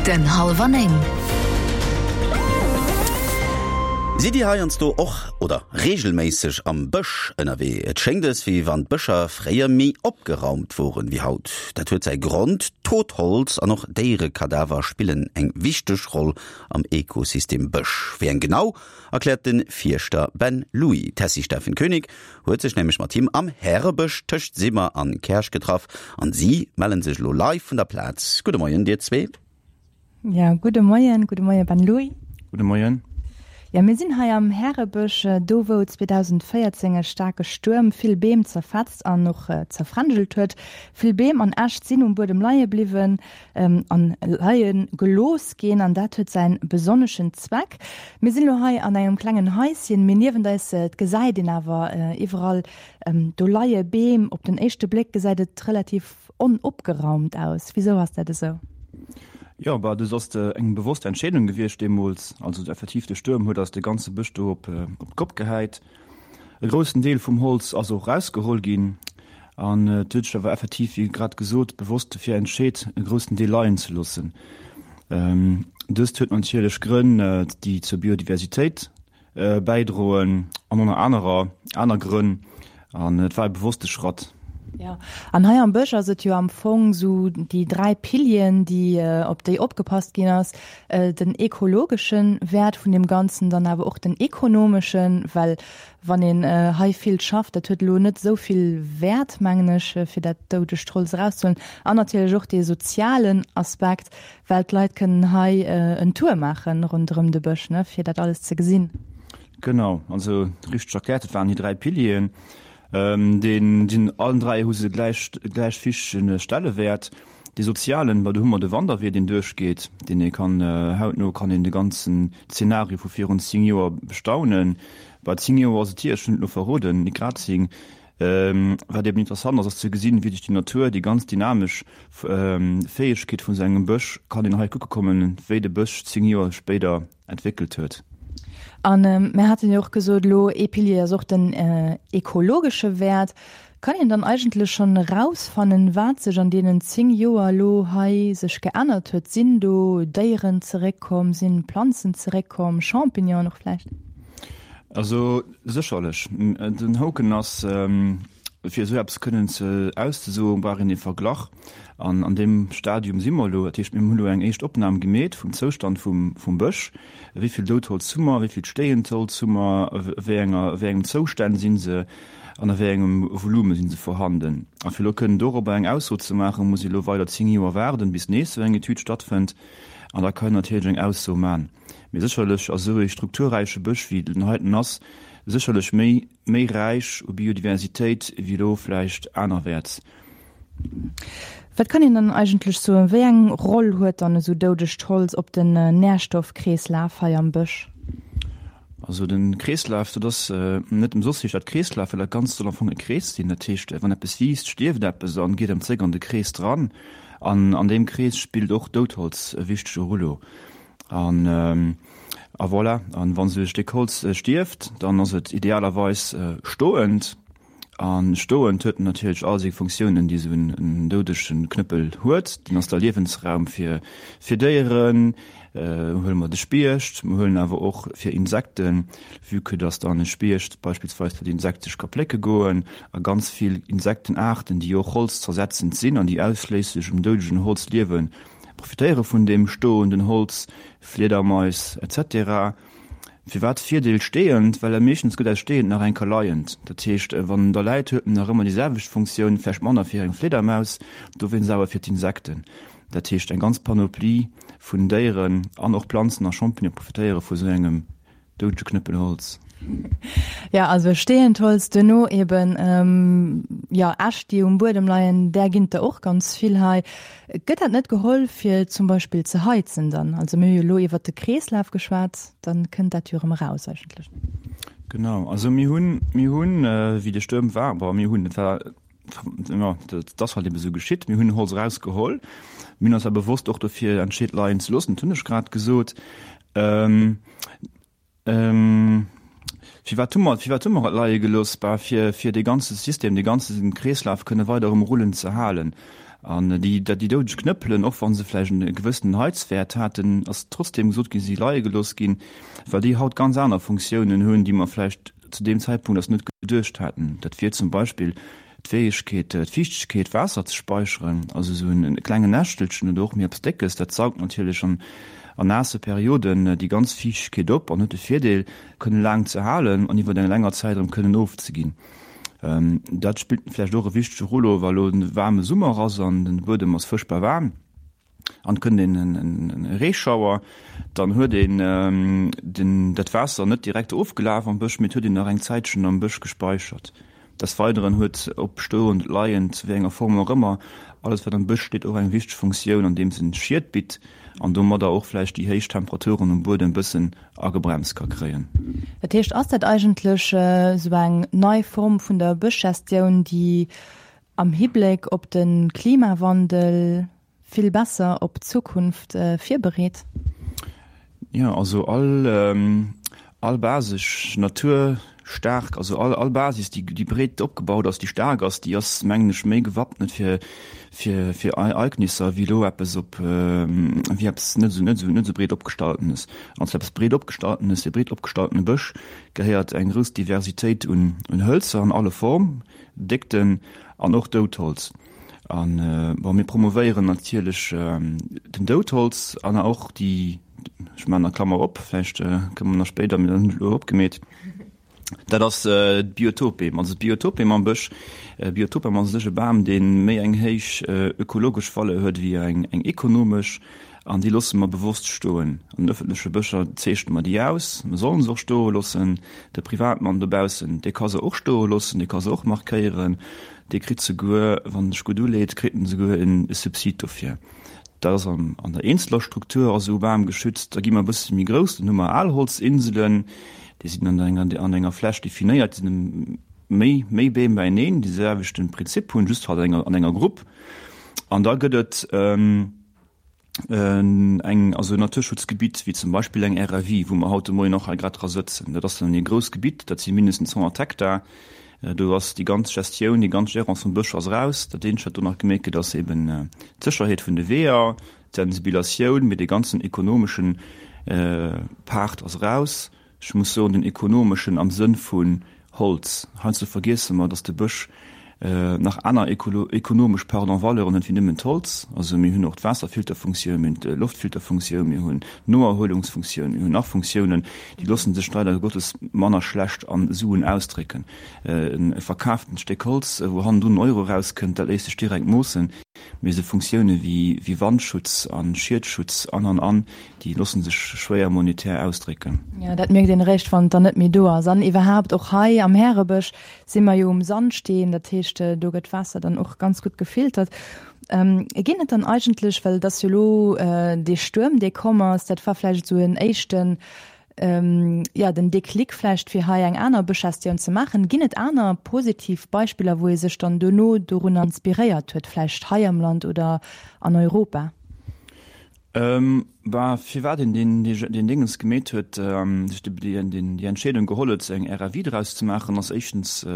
Punkten hallwer 9. Sidd Dir heiansdo och oder reegelméisseg am Bësch ënnerwee? Et schéngt es, wéi wann d'Bëscher fréier méi opgeraumt woren wéi haut. Dat huet säi Grond, Totholz an och Déierekadaver spillen eng wichteg Roll am Ekosystem Bësch. Wéi eng genau, erkläert de Fierschter Ben Louis. D'Tessy Steffen Koenig huet sech nämlech mat him am Härebësch tëscht Simmer an Käerch getraff an si mellen sech elo live vun der Plaz. Gudde Moien dir zwee. Ja, gudde Moien, gudde Moie Ben Louis. Gudde Moien. Ja, mir sinn hei am Härebësch, do wou 2014 e staarke Stuerm vill Beem zerfetzt an och zerfränjelt huet. Vill Beem an Äscht sinn um Buedem leie bliwwen. An leie gelooss ginn, an dat huet säin besonneschen Zweck. Mir sinn elo hei an engem klengen Haischen, mee niewent eis, et gesäit een awer iwwerall, do leie Beem. Op den éischte Bléck gesäit et relativ onopgeraumt aus. Wisou ass dat esou? Jo, bah, dës ass eng bewosst Entscheedung gewiescht deemools. Also effektiv, de Stuerm huet eis de ganze Bësch do op d'Kopp gehäit. E groussen Deel vum Holz ass och erausgeholl ginn an et huet sech awer effektiv, wéi grad gesot, bewosst dofir entscheet, e groussen Deel leien ze loossen. Dëst huet natierlech Grënn, déi zur Biodiversitéit bäidroen an ënner anerer aner Grënn an et war e bewosste Schratt. Jo, an hei am Bësch ass et jo am Fong esou déi 3 Pilieren, déi, op déi opgepasst ginn ass, den ekologesche Wäert vun deem Ganzen, dann awer och den ekonomeschen, well wann een hei vill schafft, dat huet elo net esou vill Wäert, mengen ech, fir dat doudegt Holz erauszehuelen, an natierlech och dee sozialen Aspekt, well d'Leit kënnen hei en Tour maache ronderëm de Bësch, ne, fir dat alles ze gesinn. Genau, also richteg erkläert, et waren déi 3 Pilieren. Deen sinn allen 3 hu se gläich gläich wichtege Stellewäert. Dee sozialen, bah do hu mer de Wanderwee deen duerchgeet, deen ee kann hautno kann een de ganzen Zeenario vu virun 10 Joer bestaunen. Bah 10 Joer ass et hier, ech hunn et elo verroden, nit grad 10. Wat eben interessant ass, ass ze gesinn, wéi sech déi Natur, déi ganz dynamesch Fäegkeet vun esou engem Bësch, kann een hei kucke kommen, wéi de Bësch 10 Joer spéider entwéckelt huet. An mir haten jo och gesot elo, ee Pilier ass och den ekologesche Wäert. Kann een dann eigentlech schonn erausfannen, wat sech an deenen 10 Joer elo hei sech geännert huet? Sinn do Déieren zeréckkomm, sinn Planzen zeréckkomm, Champignonen och vläicht? Also sécherlech. Den Hoken ass, fir esou eppes kënnen ze auszesoen, brauch een ee Verglach. An an deem Stadium si mer elo. Dat heescht, mir hunn elo eng éischt Opnam gemeet vum Zoustand vum, vum Bësch. Wéi vill Doudholz hu mer, wéi vill stéiend Holz hu mer, a wéi enger, a wéi engem Zoustänn si se an a wéi engem Volume si se vorhanden. A fir elo kënnen dorobber eng Ausso ze maachen, muss ee elo weider 10 Joer waarden, bis nees esou eng Etüd stattfënnt. An da kann een natierlech eng Ausso man. Mee sécherlech ass esou ee strukturräiche Bësch, wéi den heiten ass, sécherlech méi, méi räich u Biodiversitéit wéi elo vläicht anerwäerts. Wat kann een dann eigentlech soen, wéi eng Roll huet dann esou doudegt Holz op den Nährstoffkreeslaf hei am Bësch? Also den Kreeslaf, dat ass net ëmsoss heescht dat Kreeslaf, well dat Ganzt soll am Fong e Krees sinn. Dat heescht, wann eppes wiisst, stierft eppes an geet erëm zréck an de Krees dran. An an deem Krees spillt och Doudholz e wichtege Rullo. An a voilà, an wann esou e Stéck Holz stierft, dann ass et idealerweis stoend. A stoend huet en natierlech all seng Funktiounen, déi esou en doudege Knëppel huet. Deen ass da Liewensraum fir fir Déieren, huele mer de Spiecht, mer huelen awer och fir Insekten, vue que dass dann e Spiecht beispillsweis fir d'Insekte sech ka plécke goen a ganz vill Insektenaarten, déi och holzzersetzend sinn an déi ausschléisslech um doudegen Holz liewen, profitéiere vun deem stoenden Holz, Fliedermais etc. Firwat Virdeel steeënd? Well meeschtens gëtt aus steeënd nach eng Kéier leiend. Dat heescht, wann en da läit, huet en nach ëmmer déi selwecht Funktioun, vläicht manner fir eng Fliedermaus, dowéinst awer fir d'Insekten. Dat heescht, eng ganz Panoplie vun Déieren an och Planzen a Champignonen profitéiere vu sou engem doudege Knëppel Holz. Jo, also steeënd Holz, duerno eben, jo, Äscht, déi um Buedem leien, där ginn et der och ganz vill hei. Gëtt dat net geholl fir zum Beispill ze heizen dann? Also mir hu jo elo iwwert de Kreeslaf geschwat, da kënnt dat jo erëm eraus eigentlech. Genau, also mir hunn, mir hunn, wéi de Stuerm war, bon, mir hunn, et war, jo, dat ass halt ebe sou geschitt, mir hunn Holz erausgeholl. Mir hunn eis awer bewosst och dofir entscheet leien ze loossen, dat hunn ech grad gesot. Firwat hu mer, firwat hu mer et leie gelooss? Bah, fir, fir dee ganze System, dee ganze Kreeslaf kënne weider um Rullen ze halen. An déi, déi doudeg Knëppelen, och wa se vläicht e gewëssenen Heizwäert haten, ass trotzdeem gesot ginn, si leie gelooss ginn, well déi haut ganz aner Funktiounen hunn, déi mer vläicht zu deem Zäitpunkt eis net geduecht haten. Dat wier zum Beispill d'Fäegkeet, d'Fiichtegkeet, Waasser ze speicheren, also esou e klengen Näschtelchen oder och méi eppes Déckes, dat saugt natierlech an naasse Perioden déi ganz Fiichtegkeet op an huet de Virdeel, kënne laang ze halen an iwwer eng länger Zäit erëm kënnen ofzeginn. Dat spillt vläicht och e wichtege Rôle, wa lo e waarme Summer ass an de Buedem ass fuerchtbar waarm an et kënnt een e Reeschauer, dann huet een den dat Waasser net direkt ofgelaf am Bësch, mee et huet een nach eng Zäitchen am Bësch gespeichert. Des Weideren huet, ob stoend, leiend, wéi enger Form och ëmmer, alles wat am Bësch steet och eng wichteg Funktioun, andeems en Schied bitt an domadder och vläicht déi héich Temperaturen um Buedem bëssen agebremst ka kréien. Dat heescht, ass dat eigentlech esou eng nei Form vun der Bëschgestioun, déi am Hibléck op de Klimawandel vill besser op d'Zukunft virbereet? Jo, also all, all basesch Natur staark, also all, all Basis, déi, déi breet opgebaut ass, déi staark ass, déi ass, mengen ech, méi gewappnet fir, fir, fir Ereignisser wéi elo eppes op, wéi eppes net esou, net esou, net esou breet opgestaltenes. An zu eppes breet opgestaltenes, e breet opgestaltene Bësch gehéiert eng grouss Diversitéit un, un Hëlzer an alle Form, Déckten an och Doudholz. An, bon, mir promovéieren natierlech den Doudholz an och déi, ech maachen nach Klammer op, vläicht kënne mer nach spéider, mir hunn elo opgemeet, dat ass d'Biotopbeem. Also d'Biotopbeem am Bësch, Biotopbeem ass u sech e Bam, dee méi eng héich ökologesch Valeur huet wéi eng ekonomesch an déi loosse mer bewosst stoen. An den ëffentleche Bëscher zeechne mer déi aus, mer sollen se och stoe loossen. De Privatmann dobaussen, dee ka se och stoe loossen, dee ka se och markéieren, dee kritt souguer, wann en sech gutt uleet, kritt en souguer e Subsid dofir. Dat ass an der eenzeler Struktur ass esou Bam geschützt. Da gi mer e bësse méi grouss, dann hu mer Alholzinselen, déi sinn an enger an enger Fläch definéiert, déi sinn méi méi Beem beieneen, déi selwechte Prinzip hunn, just halt an enger an enger Grupp. An da gëtt et eng also en Naturschutzgebitt wéi zum Beispill eng RAV, wou mer haut de Moien och hei grad dra sëtzen. Dat ass dann e grousst Gebitt, dat si mindestens 100 Hektar. Do ass déi ganz Gestioun, déi ganz Gérance vum Bësch ass eraus. Dat eenzegt, wat do nach gemeet gëtt, ass eben d'Sécherheet vun de Weeër, d'Sensibilatioun, mee dee ganzen ekonomeschen Part ass eraus. Ech muss soen, den ekonomeschen am Sënn vun Holz. Heiansdo vergiesse mer, datt de Bësch nach aner ekonomesch, pardon, Valeuren huet wéi nëmmen d'Holz. Also mir hunn och d'Waasserfilterfunktioun, mir hunn d'Loftfilterfunktioun, mir hunn d'Noerhuelungsfunktioun, mir hunn nach Funktiounen, déi loosse sech leider Gottes manner schlecht a Suen ausdrécken. E verkaaftent Stéck Holz, wou hannendrun en Euro erauskënnt, dat léisst sech direkt moossen. Mee esou Funktioune wéi Wandschutz a Schiedschutz an, an, an, déi loosse sech schwéier monetär ausdrécken. Jo, dat mierkt een eréischt, wann et dann net méi do ass. An iwwerhaapt, och hei am Härebësch si mer jo um Sandsteen, dat heescht, do gëtt d'Waasser dann och ganz gutt gefiltert. Ginn et dann eigentlech, well et ass jo elo dee Stuerm, dee komm ass, dat war vläicht esou en éischten, jo, den Déclic vläicht, fir hei eng aner Bëschgestioun ze maachen. Ginn et aner positiv Beispiller, wou ee sech dann duerno dorunner inspiréiert huet, vläicht hei am Land oder an Europa? Bah, firwat een deen, deen Déngens gemeet huet, sech déi Entscheedung geholl huet, eng RAV draus ze maachen, ass éischtens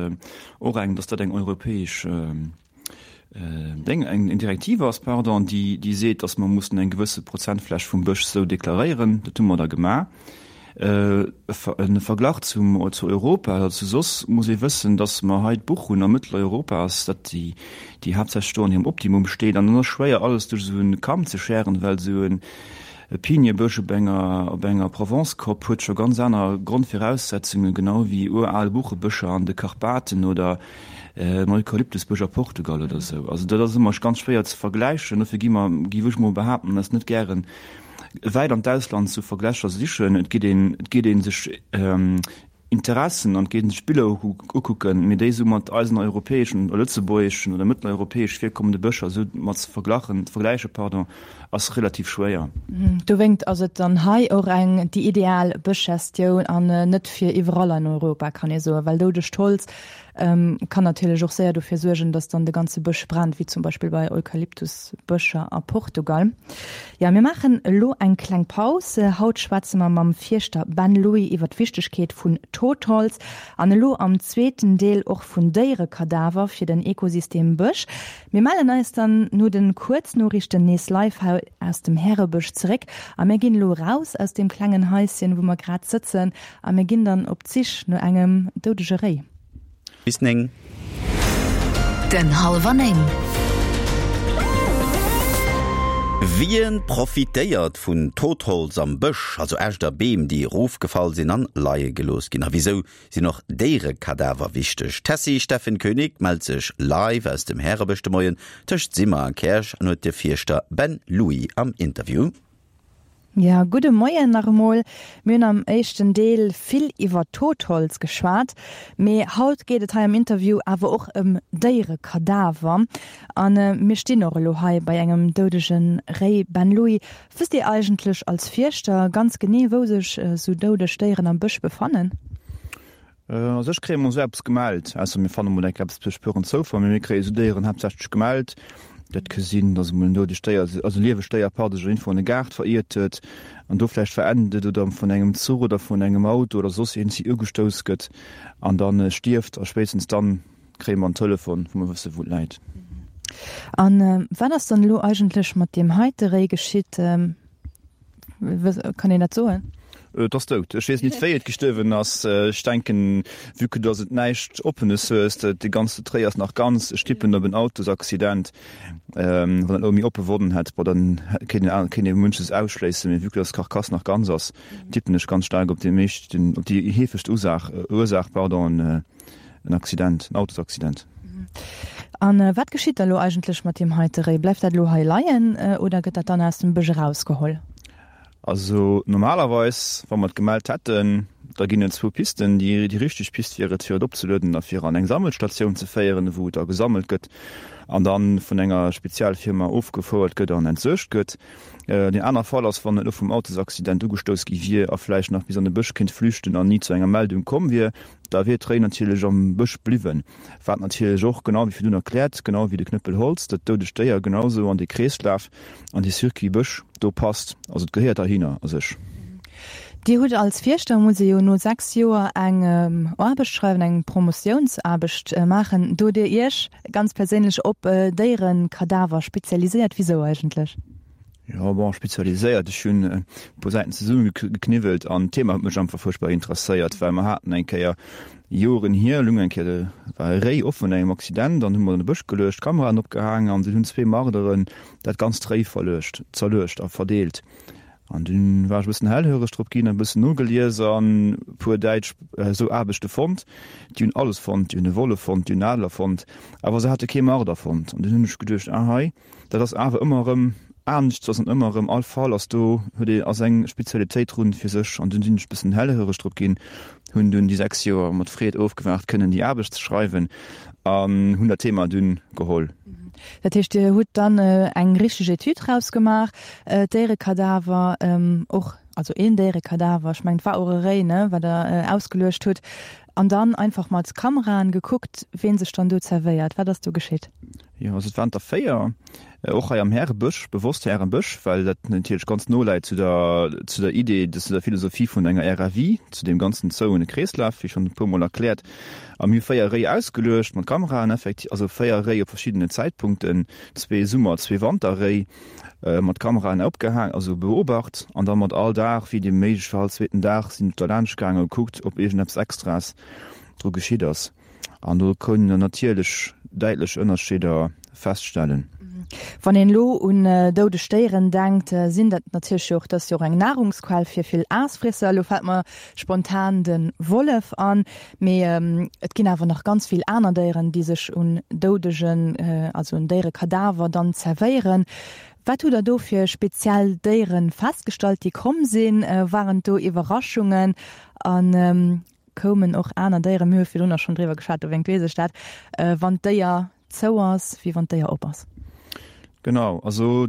och eng, datt dat eng europäesch Déng, eng Direktiv ass, pardon, déi, déi seet, datt mer mussen eng gewësse Prozentfläch vum Bësch esou deklaréieren. Dat hu mer da gemaach. E Verglach zum, zu Europa oder zu soss muss ee wëssen, datt mer hei d'Buch hunn a Mëtteleuropa ass dat déi, déi haaptsächlech do an hirem Optimum steet. An dann ass schwéier alles duerch esou e Kamm ze schären, well esou e Piniebësch op enger, op enger Provence-Kopp huet scho ganz aner Grondviraussetzungen, genau wéi ural Buchebëscher an de Karpaten oder en Eukalyptusbësch a Portugal oder esou. Also dat ass ëmmer ganz schwéier ze vergläichen. Dofir gi mer, géif ech mol behaapten, eis net gären wäit an d'Ausland zu Verglächer sichen. Et geet een, et geet ee sech Interessen an et geet een sech Biller ukucken, mee déi esou mat eisen europäeschen oder lëtzebuergeschen oder mëtteleuropäesch virkommende Bëscher esou mat ze verglachen, ze vergläichen, pardon, ass relativ schwéier. Dowéingt ass et dann hei och eng déi ideal Bëschgestioun an net fir iwwerall an Europa, kann ee soen, well doudegt Holz Kann natierlech och séier dofir suergen, dass dann de ganze Bësch brennt, wéi zum Beispill bei Eukalyptusbëscher a Portugal. Jo, mir maachen elo eng kleng Paus. Haut schwätze mer mam Fierschter Ben Louis iwwer d'Wichtegkeet vun. Totholz an elo am zweeten Deel och vun Déierekadaver fir den Ekosystem Bësch. Mir mellen eis dann no den Kuerznoriichten nees live hei aus dem Härebësch zeréck a mir ginn elo raus aus deem klengen Haischen wou mer grad sëtzen a mir ginn dann op d'Sich no engem doudege Réi. Bis 9. Den Hallwer 9. Wien profitéiert vun Totholz am Bësch, also Äscht a Beem, déi erofgefall sinn an leie gelooss ginn? A wisou sinn och Déierekadaver wichteg? D'Tessy Steffen Koenig mellt sech live aus dem Härebësch de Moien tëscht Simmer a Käerch an huet de Fierschter Ben Louis am Interview. Ja, gudde Moien nach emol. Mir hunn am éischten Deel vill iwwer Totholz geschwat, mee haut geet et hei am Interview awer och ëm Déierekadaver. A mir stinn och elo hei bei engem doudege Réi. Ben Louis, wësst Dir eigentlech als Fierschter ganz genee, wou sech esou doudeg Déieren am Bësch befannen? A sech kréie mer esou eppes gemellt, ausser mir fanne mol enk eppes duerch puren Zoufall, mee mir kréie esou Déieren haaptsächlech gemellt. Dat ka sinn, datt emol en doudegt Déier, also e liewegt Déier, pardon, sech iergendwou an e Gaart veriert huet an do vläicht verennt et oder vun engem Zuch oder vun engem Auto oder soss iergendwéi ugestouss gëtt an da stierft. A spéitstens dann kréie mer en Telefon, wou mer wësse wou et läit. A wat ass dann elo eigentlech mat deem heite Réi geschitt? Kann een dat soen? Et ass dout. Ech weess nit wéi et gestuerwen ass. Ech denken, vue que dass et näischt Oppenes hues, de ganze Tréi ass nach ganz, ech tippen op en Autosaccident. Wann et elo méi oppe Wonnen hätt, bon dann kéint een kéint ee munches ausschléissen, mee vue que dass d'Carcasse nach ganz ass, tippen ech ganz staark op déi meescht, op déi heefegst Usaach, Ursaach, pardon, en Accident, en Autosaccident. A wat geschitt da lo eigentlech mat deem heite Réi? Bleift dat elo hei leien oder gëtt dat dann aus dem Bësch erausgeholl? Also normalerweis, wa mer et gemellt hätten, da ginn et zwou Pisten. Déi richteg Pist wier et, fir et opzelueden a fir an eng Sammelstatioun ze féieren, wou et da gesammelt gëtt an da vun enger Spezialfirma ofgefouert gëtt an entsuergt gëtt. Deen aner Fall ass, wann et elo vum Autosaccident ugestouss gi wier a vläicht nach bis an de Bësch kéint flüchten an ni zu enger Meldung komm wier, Da wier d'Réi natierlech am Bësch bliwwen, wat natierlech och, genau wéi virdun erkläert, genau wéi de Knëppel Holz, dat doudegt Déier genau sou an dee Kreeslaf, an dee Circuit Bësch do passt. Also et gehéiert heihinner a sech. Dir hutt als Fierschter, muss ee jo no 6 Joer eng Aarbecht schreiwen, eng Promotiounsaarbecht maachen. Do hutt Dir Iech ganz perséinlech op Déierekadaver spezialiséiert. Wisou eigentlech? Jo, bon, spezialiséiert, ech hunn e puer Säiten zesummegekniwwelt an d'Thema huet mech einfach fuerchtbar interesséiert, well mer haten eng Kéier, Joren hier, lung eng Kéier, war e Réi offen no engem Accident an hu mer an de Bësch geluecht, Kameraen opgehaang an dunn hunn zwee Marderen dat ganzt Réi verluecht, zerluecht a verdeelt. An dunn war ech e bëssen hellhöreg drop ginn, e bëssen nogelies an e puer däitsch esou Aarbechte fonnt. Déi hunn alles fonnt, déi hunn e Wollef fonnt, déi hunn en Adler fonnt, awer se hate kee Marder fonnt. An dunn hunn ech geduecht, ah hei, Dat ass awer ëmmer erëm anescht, ass an ëmmer erëm all Fall ass do huet ee ass eng Spezialitéit drun fir sech an dunn sinn ech bëssen hellhöreg drop ginn, hunn dunn déi 6 Joer mat Freed ofgewaart kënnen déi Aarbecht ze schreiwen an hunn dat Thema dunn geholl. Dat heescht Dir hutt dann eng richteg Etüd rausgemaach, Déierekadaver och, also een Déierekadaver, ech mengen et war och e Réi, ne, wat Der ausgeluecht hutt, an dann einfach mat Kameraen gekuckt, ween sech dann do zerwéiert. Wat ass do geschitt? Jo, also et waren der 4, och hei am Härebësch, bewosst Härebësch, well dat natierlech ganz no läit zu der, zu der Idee, zu der Philosophie vun enger RFI, zu deem ganzen zouene Kreeslaf, wéi schonn e puermol erkläert. A mir hu 4 Réi ausgeluecht mat Kameraen, effektiv, also 4 Réi op verschiddenen Zäitpunkten, zwee Summer-, zwee Wanterréi, mat Kameraen opgehaang, also beobacht an da mat all Dag, wéi et méiglech war, all zweeten Dag sinn derlaanscht gaangen a gekuckt, ob iergendeppes Extraes dru geschitt ass. An do kënnen der natierlech däitlech Ënnerscheeder feststellen. Wann een elo un doudeg Déieren denkt, sinn dat natierlech jo och, dat ass jo och eng Nahrungsquell fir vill Aasfriesser. Elo fält mer spontan de Wollef an, mee et ginn awer nach ganz vill aner Déieren, déi sech un doudegen, also un Déierekadaver dann zerwéieren. Wat hutt der do fir speziell Déiere festgestallt, déi komm sinn? Waren do Iwwerraschungen? An Koumen och aner Déieren, mir hu virdrun och schonn driwwer geschwat, dowéingt weess ech dat, wann d'Déier zou ass, wéi wann d'Déier op ass. Genau, also.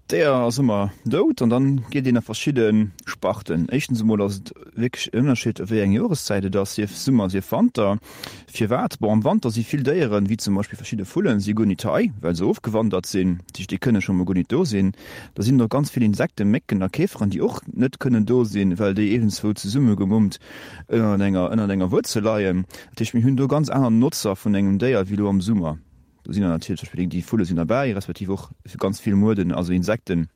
D'Déier ass ëmmer dout an dann geet een a verschidde Sparten. Éischtens emol ass et wierklech en Ënnerscheed wéi eng Joreszäit et ass, sief Summer, sief Wanter. Firwat? Bon, am Wanter si vill Déieren, wéi zum Beispill verschidde Vullen, si guer nit hei, well se ofgewandert sinn. Dat heescht, déi kënne scho mol guer nit do sinn. Da sinn och ganz vill Insekten, Mécken a Käferen, déi och net kënnen do sinn, well déi iergendzwou zesummegemummt ënnert enger, ënnert enger Wuerzel leien. Dat heescht, mir hunn do ganz aner Notzer vun engem Déier wéi elo am Summer. Do sinn dann natierlech zum Beispill déi Vulle sinn derbäi, respektiv och ganz vill Mueden, also Insekten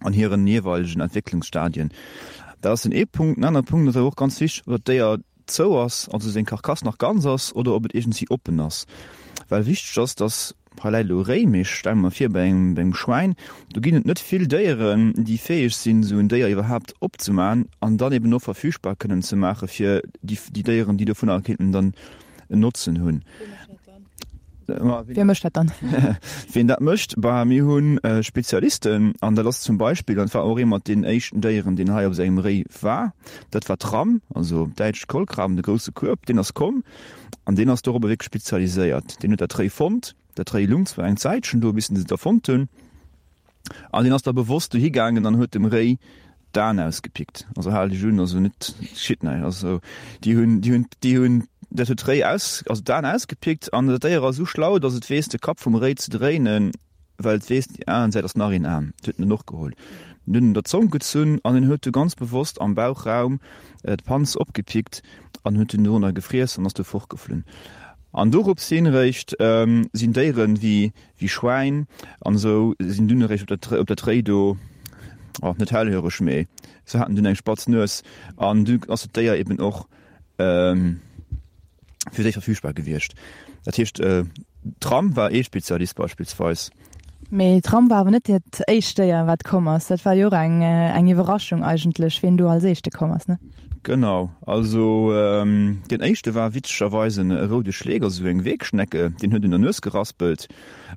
an hiren jeeweilegen Entwécklungsstadien. Dat ass den ee Punkt. Den anere Punkt ass awer och ganz wichteg, ob dat Déier zou ass, also seng Karkass nach ganz ass, oder ob et iergendwéi oppen ass. Well wichteg ass, dass, hei läit elo e Réi, mee ech stelle mer vir, bei engem, bei engem Schwäin, do ginn et net vill Déieren, déi fäeg sinn, esou en Déier iwwerhaapt opzemaachen an dann eben och verfügbar kënnen ze maache fir déi, déi Déieren, déi dovunner kéinten dann en Notzen hunn. Wie mécht dat dann? Wien dat mécht? Bah, mir hu Spezialisten an dat ass zum Beispill, an dat war och ee mat deenen éischten Déieren, deen hei op sengem Réi war, dat war d'Ramm, also op Däitsch d'Kolkraben, de grousse Kueb, deen ass komm an deen ass dorobber wierklech spezialiséiert. Deen huet dat Réi fonnt. Dat Réi lung zwar eng Zäitchen do, bis en se da fonnt hunn. An deen ass da bewosst dohi gaangen an huet dem Réi d'Aen ausgepickt. Also hal dech un, also net schitt näischt. Also déi hunn, déi hunn, déi hunn, dat huet d'Réi aus, also d'Aen ausgepickt an dat Déier ass esou schlau, datt et weess de Kapp vum Réi ze dréinen, well et weess, déi aner Säit ass nach een Aen. Dat huet en dann och geholl. En huet en der Zong gezunn an en huet du ganz bewosst am Bauchraum d'Panz opgepickt an huet dunn dorunner gefriess an ass du fortgeflunn. An dorops hin réischt sinn Déieren wéi Wéi Schwäin an esou sinn dunn eréischt op dat op dat Réi do, oh, net hellhöreg, mee se haten dunn eng spatz Nues an du ass dat Déier eben och fir déi verfügbar gewiescht. Dat heescht, d'Ram war ee Spezialist beispillsweis. Mee d'Ram war awer net dat éischt Déier, wat komm ass. Dat war jo och eng eng Iwwerraschung eigentlech, wien do als éischte komm ass, ne? Genau, also deen éischte war witzegerweis e roude Schleek, also esou eng Wegschnecke, deen huet un der Nues geraspelt.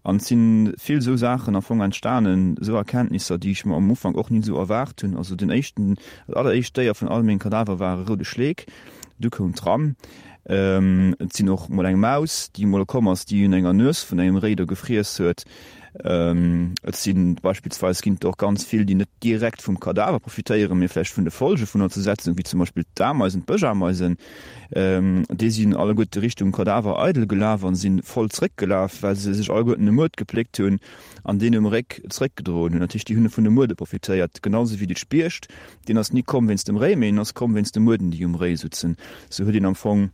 An et si vill esou Saachen am Fong entstanen, esou Erkenntnisser, déi ech mer am Ufank och ni esou erwaart hunn. Also den éischten, dat alleréischt Déier vun all menge Kadaver war e roude Schleek, du koum d'Ram. Et sinn och mol eng Maus, déi mol komm ass, déi un enger Nues vun engem Réi do gefriess huet. Et si beispillsweis ginn et och ganz vill, déi net direkt vum Kadaver profitéieren, mee vläicht vun de Folge vun der Zersetzung, wéi zum Beispill d'Ameisen, d'Bëschameisen. Déi sinn alleguerte Richtung Kadaver eidel gelaf a si voll zréckgelaf, well se sech alleguerten e Muert gepléckt hunn an deen um Réck zréckgedroen hunn. Dat heescht, déi hunn vun de Muerde profitéiert, genau sou wéi de Spiecht. Deen ass ni komm wéinst dem Réi, mee en ass komm wéinst de Muerden, déi um Réi sutzen. Sou huet een am Fong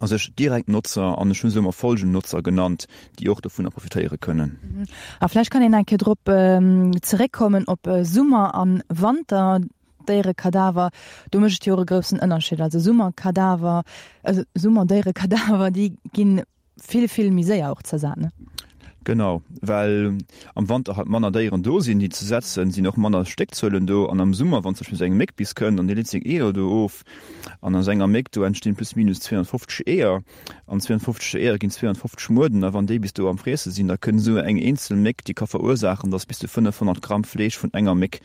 a sech direkt Notzer, an ech hu se ëmmer Folgennotzer genannt, déi och dovunner profitéiere kënnen. A vläicht kann een eng Kéier drop zeréckkommen op Summer a Wanter Déierekadaver. Do mécht et jo och e groussen Ënnerscheed. Also Summerkadaver, Summerdéierekadaver, déi ginn vill, vill méi séier och zersat, ne? Genau, well am Wanter halt manner Déieren do sinn, déi ze setzen, sinn och manner Stéckzuelen do. An am Summer, wann zum Beispill esou eng Méck bis kënnt an déi leet seng Eeër do of, an aus enger Méck do entstinn plus minus 250 Eeër, an 250 Eeër ginn 250 Mueden, a wann déi bis do am Friesse sinn, da kënnt esou eng eenzel Méck, déi ka verursaachen, datt bis zu 500 Gramm Fleesch vun enger Méck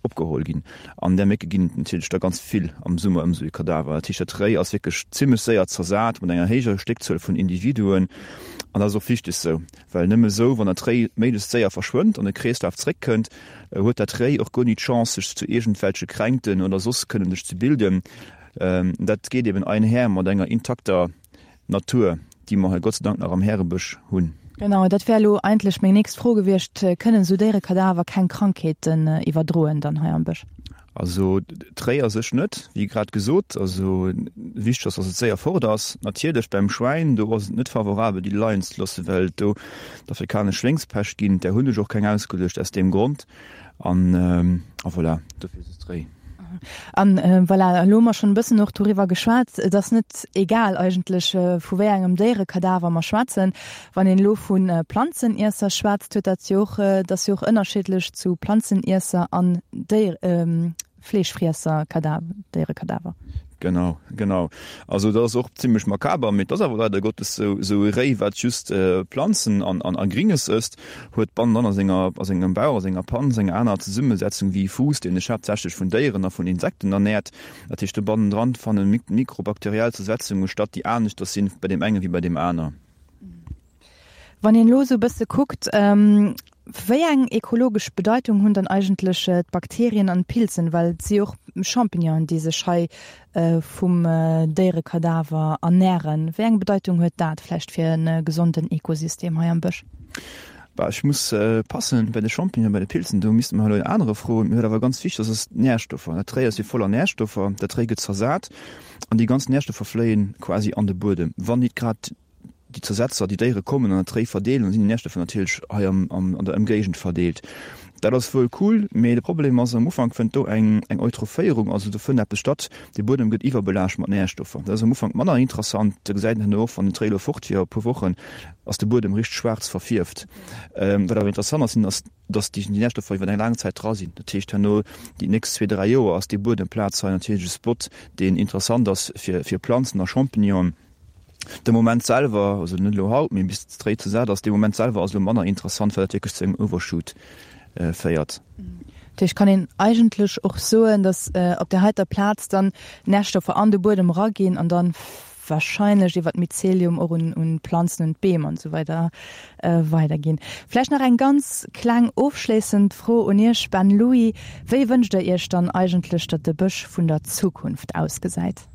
opgeholl ginn. An där Mécke ginn et natierlech da ganz vill am Summer ëm esou ee Kadaver. Dat heescht, dat Réi ass wierklech zimmlech séier zersat mat enger héijer Stéckzuel vun Individuen. An dat ass och wichteg esou, well nëmme esou, wann dat Réi méiglechst séier verschwënnt an de Kreeslaf zréckkënnt, huet dat Réi och guer ni d'Chance, sech zu iergendwelche Kränkten oder soss kënnen sech ze bilden. Dat geet eben einher mat enger intakter Natur, déi mer hei Gott sei Dank nach am Härebësch hunn. Genau, dat wär elo eigentlech meng nächst Fro gewiescht. Kënnen esou Déierekadaver keng Krankheeten iwwerdroen dann hei am Bësch? Also d'Réi a sech net, wéi grad gesot. Also wichteg ass, dass et séier fort ass. Natierlech beim Schwäin, do ass et net favorabel déi leien ze loossen, well et do d'afrikanesch Schwéngspescht ginn. Där hunn ech och keng ausgeluecht aus deem Grond. An a voilà, dofir ass et d'Réi. An voilà, elo hu mer schonn e bëssen och doriwwer geschwat, et ass net egal eigentlech, vu wéi engem Déierekadaver mer schwätzen. Wann een elo vu Planzeniesser schwätzt, huet dat jo och, et ass jo och ënnerschiddlech zu Planzeniesser an Déier, Fleeschfriesser Kadaver, Déierekadaver. Genau, genau. Also dat ass och zimmlech makaber, mee et ass awer leider Gottes sou, sou e Réi, wat just Planzen an, an, a Gringes ësst, huet bannendran a senger, a sengem Bauch, a senger Panz eng aner Zesummesetzung wéi e Fuuss, deen sech haaptsächlech vun Déieren a vun Insekten ernäert. Dat heescht, do bannendran fanne mikrobakteriell Zersetzunge statt, déi aneschters sinn bei deem enge wéi bei deem aner. Wann een elo esou e bësse kuckt. Wéi eng ekologesch Bedeitung hunn dann eigentlech d'Bakterien an d'Pilzen, well et si jo och Champignonen, déi sech hei vum Déierekadaver ernären. Wéi eng Bedeitung huet dat vläicht fir e gesonden Ekosystem hei am Bësch? Bah, ech muss passen, bei de Champignonen, bei de Pilzen, do misste mer elo en anere froen. Mee wat awer ganz wichteg ass, ass d'Närstoffer. Dat Réi ass jo voller Närstoffer, dat Réi gëtt zersat an déi ganz Närstoffer fléien quasi an de Buedem, wann nit grad déi Zersetzer, déi Déiere kommen an dat Réi verdeelen, dann sinn déi Närstoffer natierlech hei am, am, an der Ëmgéigend verdeelt. Dat ass wuel cool, mee de Problem ass, am Ufank fënnt do eng, eng Eutrophéierung, also do fënnt eppes statt, de Buedem gëtt iwwerbelaascht mat Närstoffer. Dat ass am Ufank manner interessant, da gesäit een herno och, wann den Tréi elo fort wier, e puer Wochen, ass de Buedem richteg schwaarz verfierft. Wat awer interessant ass, ass, dass déi Närstoffer iwwer eng laang Zäit dra sinn. Dat heescht, herno déi nächst zwee, dräi Joer ass déi Buedemplaz hei natierlech e Spot, deen interessant ass fir, fir Planzen a Champignonen. De Moment selwer, also net elo haut, mee bis d'Réi ze sat ass, dee Moment selwer ass elo manner interessant, well dat wierklech zu engem Overshoot féiert. Dat heescht, kann een eigentlech och soen, datt op där heiter Plaz dann Närstoffer an de Buedem eraginn an dann wahrscheinlech iwwer d'Mycelium och un un d'Planzen, un d'Beem an esou weider weiderginn. Vläicht nach eng ganz kleng ofschléissend Fro un Iech, Ben Louis, Wéi wënscht Der Iech dann eigentlech, datt de Bësch vun der Zukunft ausgesäit?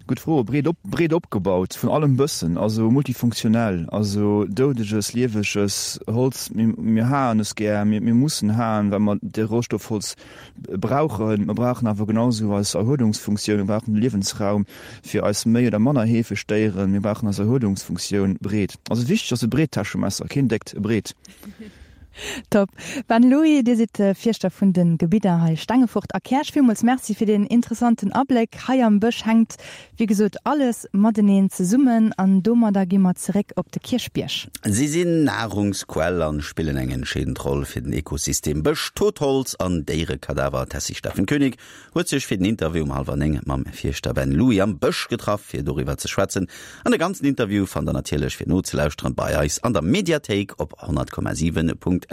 Gutt Fro. Breet op, breet opgebaut, vun allem bëssen, also multifunktionell, also doudeges, lieweges Holz. Mir, mir haen es gär, mir, mir mussen haen, well mer de Rohstoff Holz brauchen. Mer brauchen awer genau esou eis Erhuelungsfunktioun, mir brauchen de Liewensraum fir eis méi oder manner heefeg Déieren, mir brauchen eis Erhuelungsfunktioun breet. Also wichteg ass e breet Täschemesser, keen déckt, e breet. Top. Ben Louis, Dir sidd Fierschter vun de Gebidder hei Stengefort a Käerch. Villmools Merci fir deen interessanten Abléck. Hei am Bësch hänkt wéi gesot alles mateneen zesummen an domadder gi mer zeréck op de Kierchbierg. Si sinn Nahrungsquell an spillen eng entscheedend Roll fir den Ekosystem Bësch. Totholz an Déierekadaver. D'Tessy Steffen Koenig huet sech fir den Interview um hallwer 9 mam Fierschter Ben Louis am Bësch getraff, fir doriwwer ze schwätzen. An de ganzen Interview fannt der natierlech fir nozelauschteren bei eis an der Mediathéik op 100,7.lu.